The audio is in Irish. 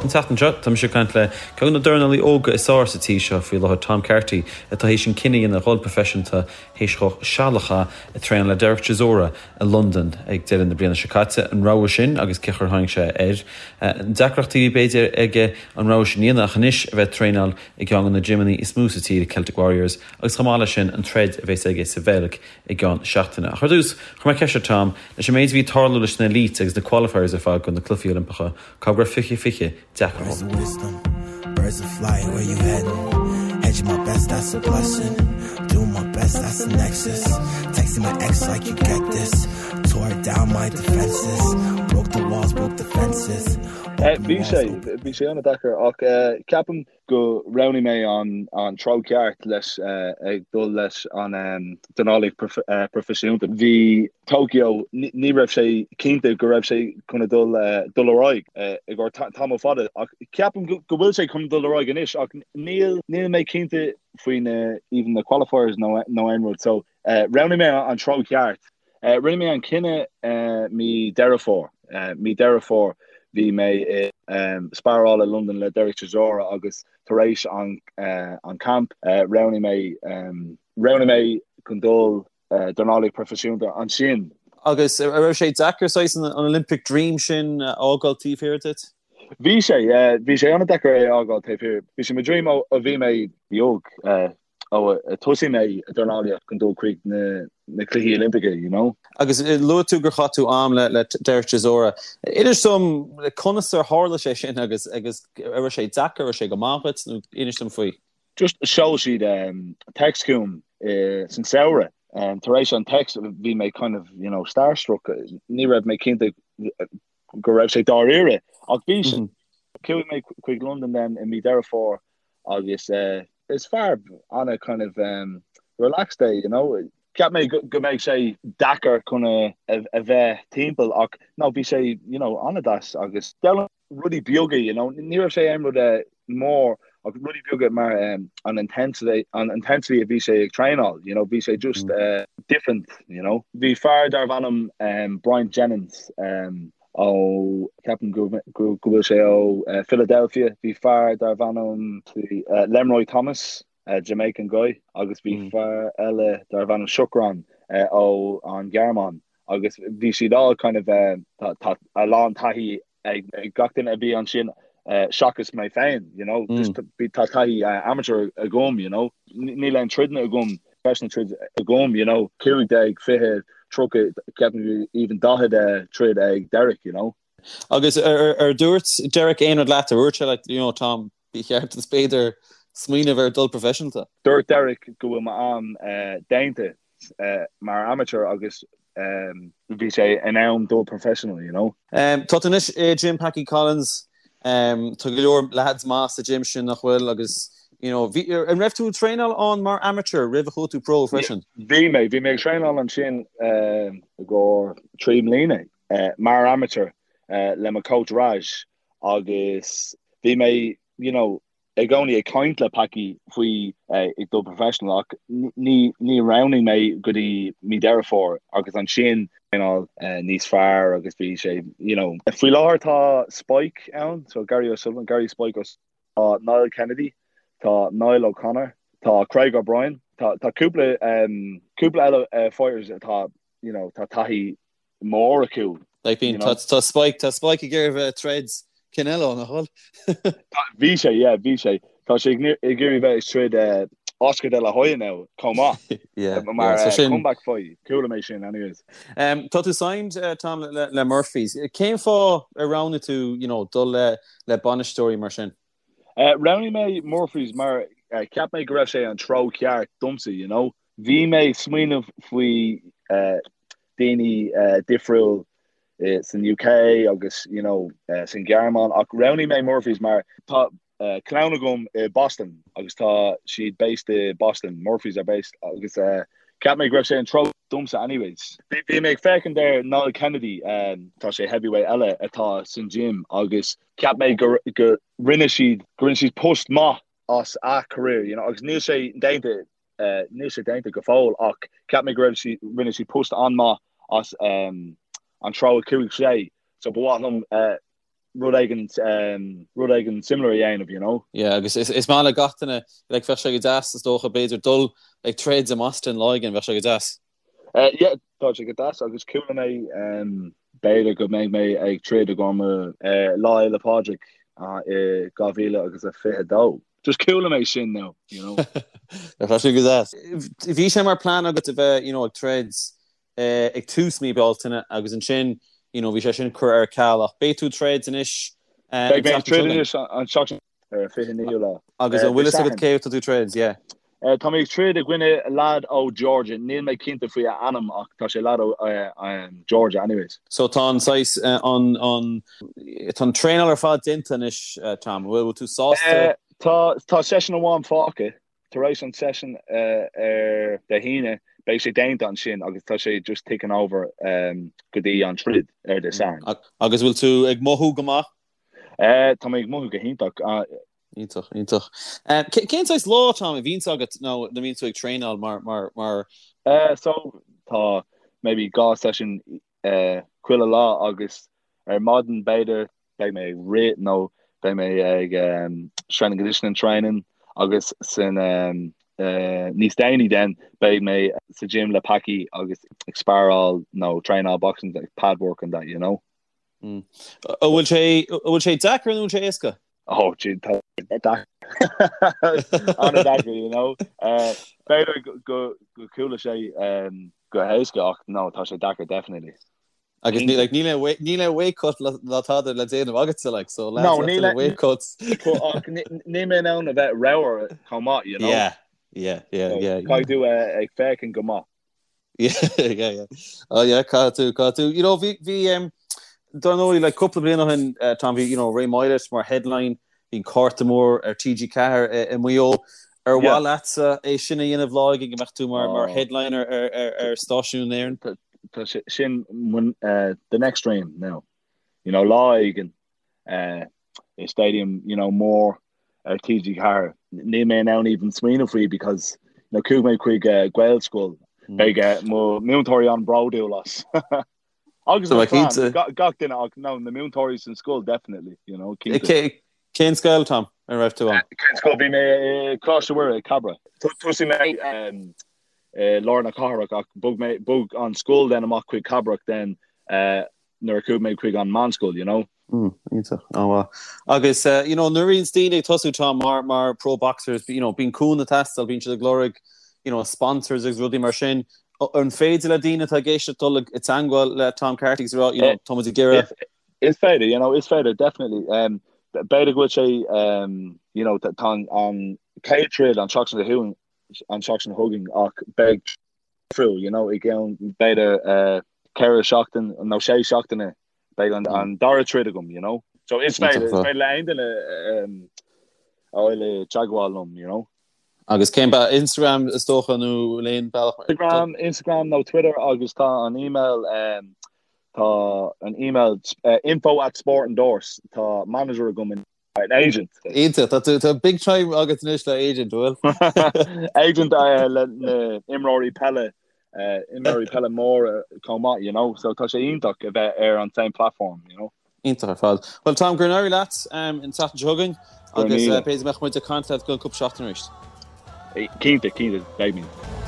An tseachtain seo, tá mise ag caint le ceann de na dornálaí óga is fearr sa tír seo faoi láthair, Tom Carty, atá théis an cinneadh a dhéanamh dhul proifisiúnta théis dhó seal a chaitheamh ag traenáil le Derek Chisora i Londain ag deireadh na bliana seo caite. An rogha sin agus cén chaoi ar tháinig sé air. Na deacrachtaí a bhí b'fhéidir aige an rogha sin a dhéanamh ach anois a bheith ag traenáil i gceann de na gymeanna is mó sa tír, Celtic Warriors, agus chomh maith leis sin an troid a bheas aige sa Bheilg i gceann seachtaine. Ach ar dtús, chuir mé ceist ar Tom, leis an méid a bhí ag tarlú leis na Elites agus na Qualifiers ar fad do na Cluichí Oilimpeacha, cá raibh 2020 deacair dhó. Bhí sé, bhí sé an-deacair ach ceapaim go roghnaigh mé an treo ceart leis ag dul leis an dornálaíocht proifisiúnta. Bhí Tokyo, ní raibh sé cinnte go raibh sé chun dul dul ar aghaidh i gcomhair tamall fada ach ceapaim go bhfuil sé chun dul ar aghaidh anois ach níl níl mé cinnte faoi na even na qualifiers nó nó aon rud so roghnaigh mé an treo ceart. Rinne mé an cinneadh mí Deireadh Fómhair. Mí Deireadh Fómhair bhí mé i sparáil i Londain le Derek Chisora agus tar éis an an camp roghnaigh mé roghnaigh mé chun dul dornálaíocht proifisiúnta ansin. Agus an raibh sé deacair saghas an Olympic Dream sin a fhágáil taobh thiar duit? Bhí sé, yeah. Bhí sé an-deacair é a fhágáil taobh thiar. Bhí sé mo dream ó bhí mé beag. ó a thosaigh mé ag dornálaíocht chun dul chuig na Cluichí Oilimpeacha, you know. Agus luaigh tú gur chaith tú am le Derek Chisora. Inis dom conas ar tharla sé sin agus agus an raibh sé deacair, an raibh sé go maith dhuit nó inis dom faoi. Just sheol siad text chugam san samhradh. Tar éis an text bhí mé kind of, you know, starstruck. Ní raibh mé cinnte go raibh sé dáiríre ach bhí sé. Chuaigh mé chuig Londain then i mí Deireadh Fómhair agus is fear ana kind of relaxed é, you know. Cheap mé go mbeidh sé deacair chun a bheith timpeall ach no bhí sé, you know, an-deas agus d'fhoghlaim rudaí beaga, you know. Ní raibh sé aon rud mór ach rudaí beaga mar an intensity, an intensity a bhí sé ag traenáil, you know, bhí sé just different, you know. Bhí fear darbh ainm Bryant Jennings ó, ceapaim go bhfuil sé ó Philadelphia, bhí fear darbh ainm Lenroy Thomas, Jamaican guy, agus bhí fear eile darbh ainm Shukran ó an Ghearmáin agus bhí siad all kind of, tá a lán taithí ag gach duine a bhí ansin seachas mé féin, you know, just tá taithí amateur agam, you know, níl aon troideanna agam, professional troid agam, you know, 15, 20, 30, ceapaim even 40 troid ag Derek, you know. Agus ar dúirt Derek aon rud leat, ar dhúirt sé leat, you know, Tom, ba cheart duit b'fhéidir smaoineamh ar dul professionalta? Dúirt Derek go bhfuil m'am déanta mar amateur agus bhí sé in am dul professional, you know. Tá tú anois i gym Packie Collins, tá go leor lads maith sa gym sin nach bhfuil agus you know, bhí, an raibh tú ag traenáil ann mar amateur roimh a chuaigh tú pro freisin? Bhí mé, bhí mé ag traenáil ansin i gcomhair 3 mbliana mar amateur le mo coach Raj agus bhí mé, you know, i gcónaí ag caint le Packie faoi ag dul professional ach ní ní roghnaigh mé go dtí mí Deireadh Fómhair agus ansin traenáil níos fearr agus bhí sé you know. Faoi láthair tá Spike ann, so Gary O'Sullivan, Gary Spike O'Sullivan, tá Niall Kennedy, tá Niall O'Connor, tá Craig O'Brien, tá tá cúpla cúpla eile fighters atá you know tá taithí mór acu. Like bíonn, tá, tá Spike, tá Spike ag iarraidh bheith ag troid Canelo, nach bhfuil? Bhí sé, yeah, bhí sé. Tá sé ag iarraidh bheith ag troid eh, Oscar de la Hoya now, chomh maith. Yeah, Mar yeah, so eh, sin- comeback fight. Chuala mé sin anyways. Um, tá tú signed, uh, Tom, le, le Murphy's. Cén fáth ar roghnaigh tú, you know, dul le, le bainisteoirí mar sin? Uh, roghnaigh mé Murphy's mar uh, cheap mé go raibh sé an treo ceart domsa, you know. Bhí mé ag smaoineamh faoi uh, daoine difriúil san UK agus you know san Ghearmáin ach roghnaigh mé Murphy's mar tá clann agam i Boston agus tá siad based i Boston, Murphy's are based agus cheap mé go raibh sé an treo domsa anyways. Bhí mé ag féachaint ar Niall Kennedy, tá sé heavyweight eile atá san gym agus cheap mé go go rinne siad go rinne siad post maith as a career you know agus níl sé déanta Níl sé déanta go fóill ach cheap mé go raibh sí, rinne sí post an-maith as an treo a chuaigh sé so ba mhaith liom. rud éigin rud éigin similar a dhéanamh, you know. Yeah, agus is maith le gach duine, like bheadh sé go deas is dócha b'fhéidir dul ag troid i mBoston lá éigin, bheadh sé go deas. Yeah, tá sé go deas agus chuala mé b'fhéidir go mbeidh mé ag troid i gcomhair Lá Fhéile Pádraig i 2022. Just chuala mé sin now, you know. Tá sé go deas. Bhí sé mar plean agat a bheith, you know, ag troid ag tús mí Bealtaine agus ansin, you know, bhí sé sin curtha ar ceal ach beidh tú ag troid anois an Beidh mé ag troid anois an tseachtain ar an 29ú lá. Agus an bhfuil fhios agat cé atá tú ag troid, yeah. Tá mé ag troid i gcoinne lad ó Georgia, níl mé cinnte faoi a ainm ach tá sé lad ó Georgia anyways. So tá an saghas, an, an, tá an traenáil ar fad déanta anois Tom, an bhfuil tú sásta? Tá, tá session amháin fágtha, tar éis an session ar Dé hAoine beidh sé déanta ansin agus tá sé just ticking over go dtí an troid ar Dé Sathairn. Agus bhfuil tú ag mothú go maith? Tá mé ag mothú go hiontach. Iontach, iontach. Cén saghas lá, Tom, a bhíonns agat nó nuair a bhíonn tú ag traenáil mar, mar, mar. So, tá maybe 2 session chuile lá agus ar maidin b'fhéidir beidh mé ag rith nó beidh mé ag strength and conditioning training agus san níos déanaí then beidh mé sa gym le Packie agus ag sparáil nó traenáil boxing like pad work and that, you know. An bhfuil sé, an bhfuil sé deacair nó an bhfuil sé éasca? Oh, gee, tá deacair. An-deacair, you know. B'fhéidir go chuala sé go héasca ach no, tá sé deacair, definitely. Agus níl like, níl aon níl aon weight cut ná tada le déanamh agatsa like, so lads, no, níl aon weight cuts. Ach níl mé in ann a bheith ramhar chomh maith, you know. Yeah, yeah, yeah, yeah. Caithfidh tú ag féachaint go maith. Yeah, yeah, yeah. Oh yeah, caithfidh tú, caithfidh tú. You know, bhí, bhí, um, dar ndóigh, like, cúpla bliain ó shin, uh, Tom, bhí, you know, Ray Moylette mar headline, bhí an cárta mór ar TG4 i, i Maigh Eo. Ar mhaith Yeah. leatsa é sin a dhéanamh lá éigin go mbeadh tú mar, mar Oh. headliner ar, ar, ar stáisiún na hÉireann? Tá, tá sé sin uh, the next dream now. You know, lá éigin, uh, i stadium, you know, mór ar TG4. Níl mé in ann even smaoineamh faoi because you know, chuaigh mé chuig uh, Gaelscoil. Mm. Beidh uh, mo múinteoirí an-bhródúil as. Agus mo chlann, gach duine ach no, na múinteoirí san scoil definitely, you know, cinnte. Cén scoil, Tom, a raibh tú ann? Cén scoil? Bhí mé i Coláiste Mhuire i Cabra. Thosaigh mé um, i lár na cathrach ach bhog mé bhog an scoil then amach chuig Cabrach then uh, nuair a chuaigh mé chuig an meánscoil, you know. Mm, iontach, an-mhaith. Agus, uh, you know, nuair a bhíonns daoine ag tosú Tom mar, mar pro boxers, you know, bíonn cúnamh ag teastáil, bíonn siad ag lorg, you know, sponsors agus rudaí mar sin. An féidir le daoine atá ag éisteacht dul i dteangmháil le Tom Carty agus rá, you know, tá muid ag iarraidh. Is féidir, you know, is féidir, definitely. Um, b'fhéidir go bhfuil sé, um, you know, tá an, an chéad troid an tseachtain seo an tseachtain seo chugainn ach beidh difriúil, you know, i gceann b'fhéidir uh, 4 seachtain nó 6 seachtaine beidh an, an dara troid agam, you know. So is féidir, is féidir le aon duine um, a fháil i dteagmháil liom, you know. Agus cén ba Instagram is dócha nó aon bealach? Instagram, Instagram nó Twitter agus tá an email um, tá an email uh, info at sport endorse tá manager agam in An agent. Iontach, tá tú, tá big time agat anois le agent, bhfuil? Agent le na imreoirí peile, imreoirí peile móra chomh maith, you know, so tá sé iontach a bheith ar an same platform, you know. Iontach ar fad. Bhuel Tom, go n-éirí leat an tseachtain seo chugainn agus b'fhéidir go mbeadh muid ag caint leat i gceann cúpla seachtain arís. Cinnte, cinnte, beidh mé.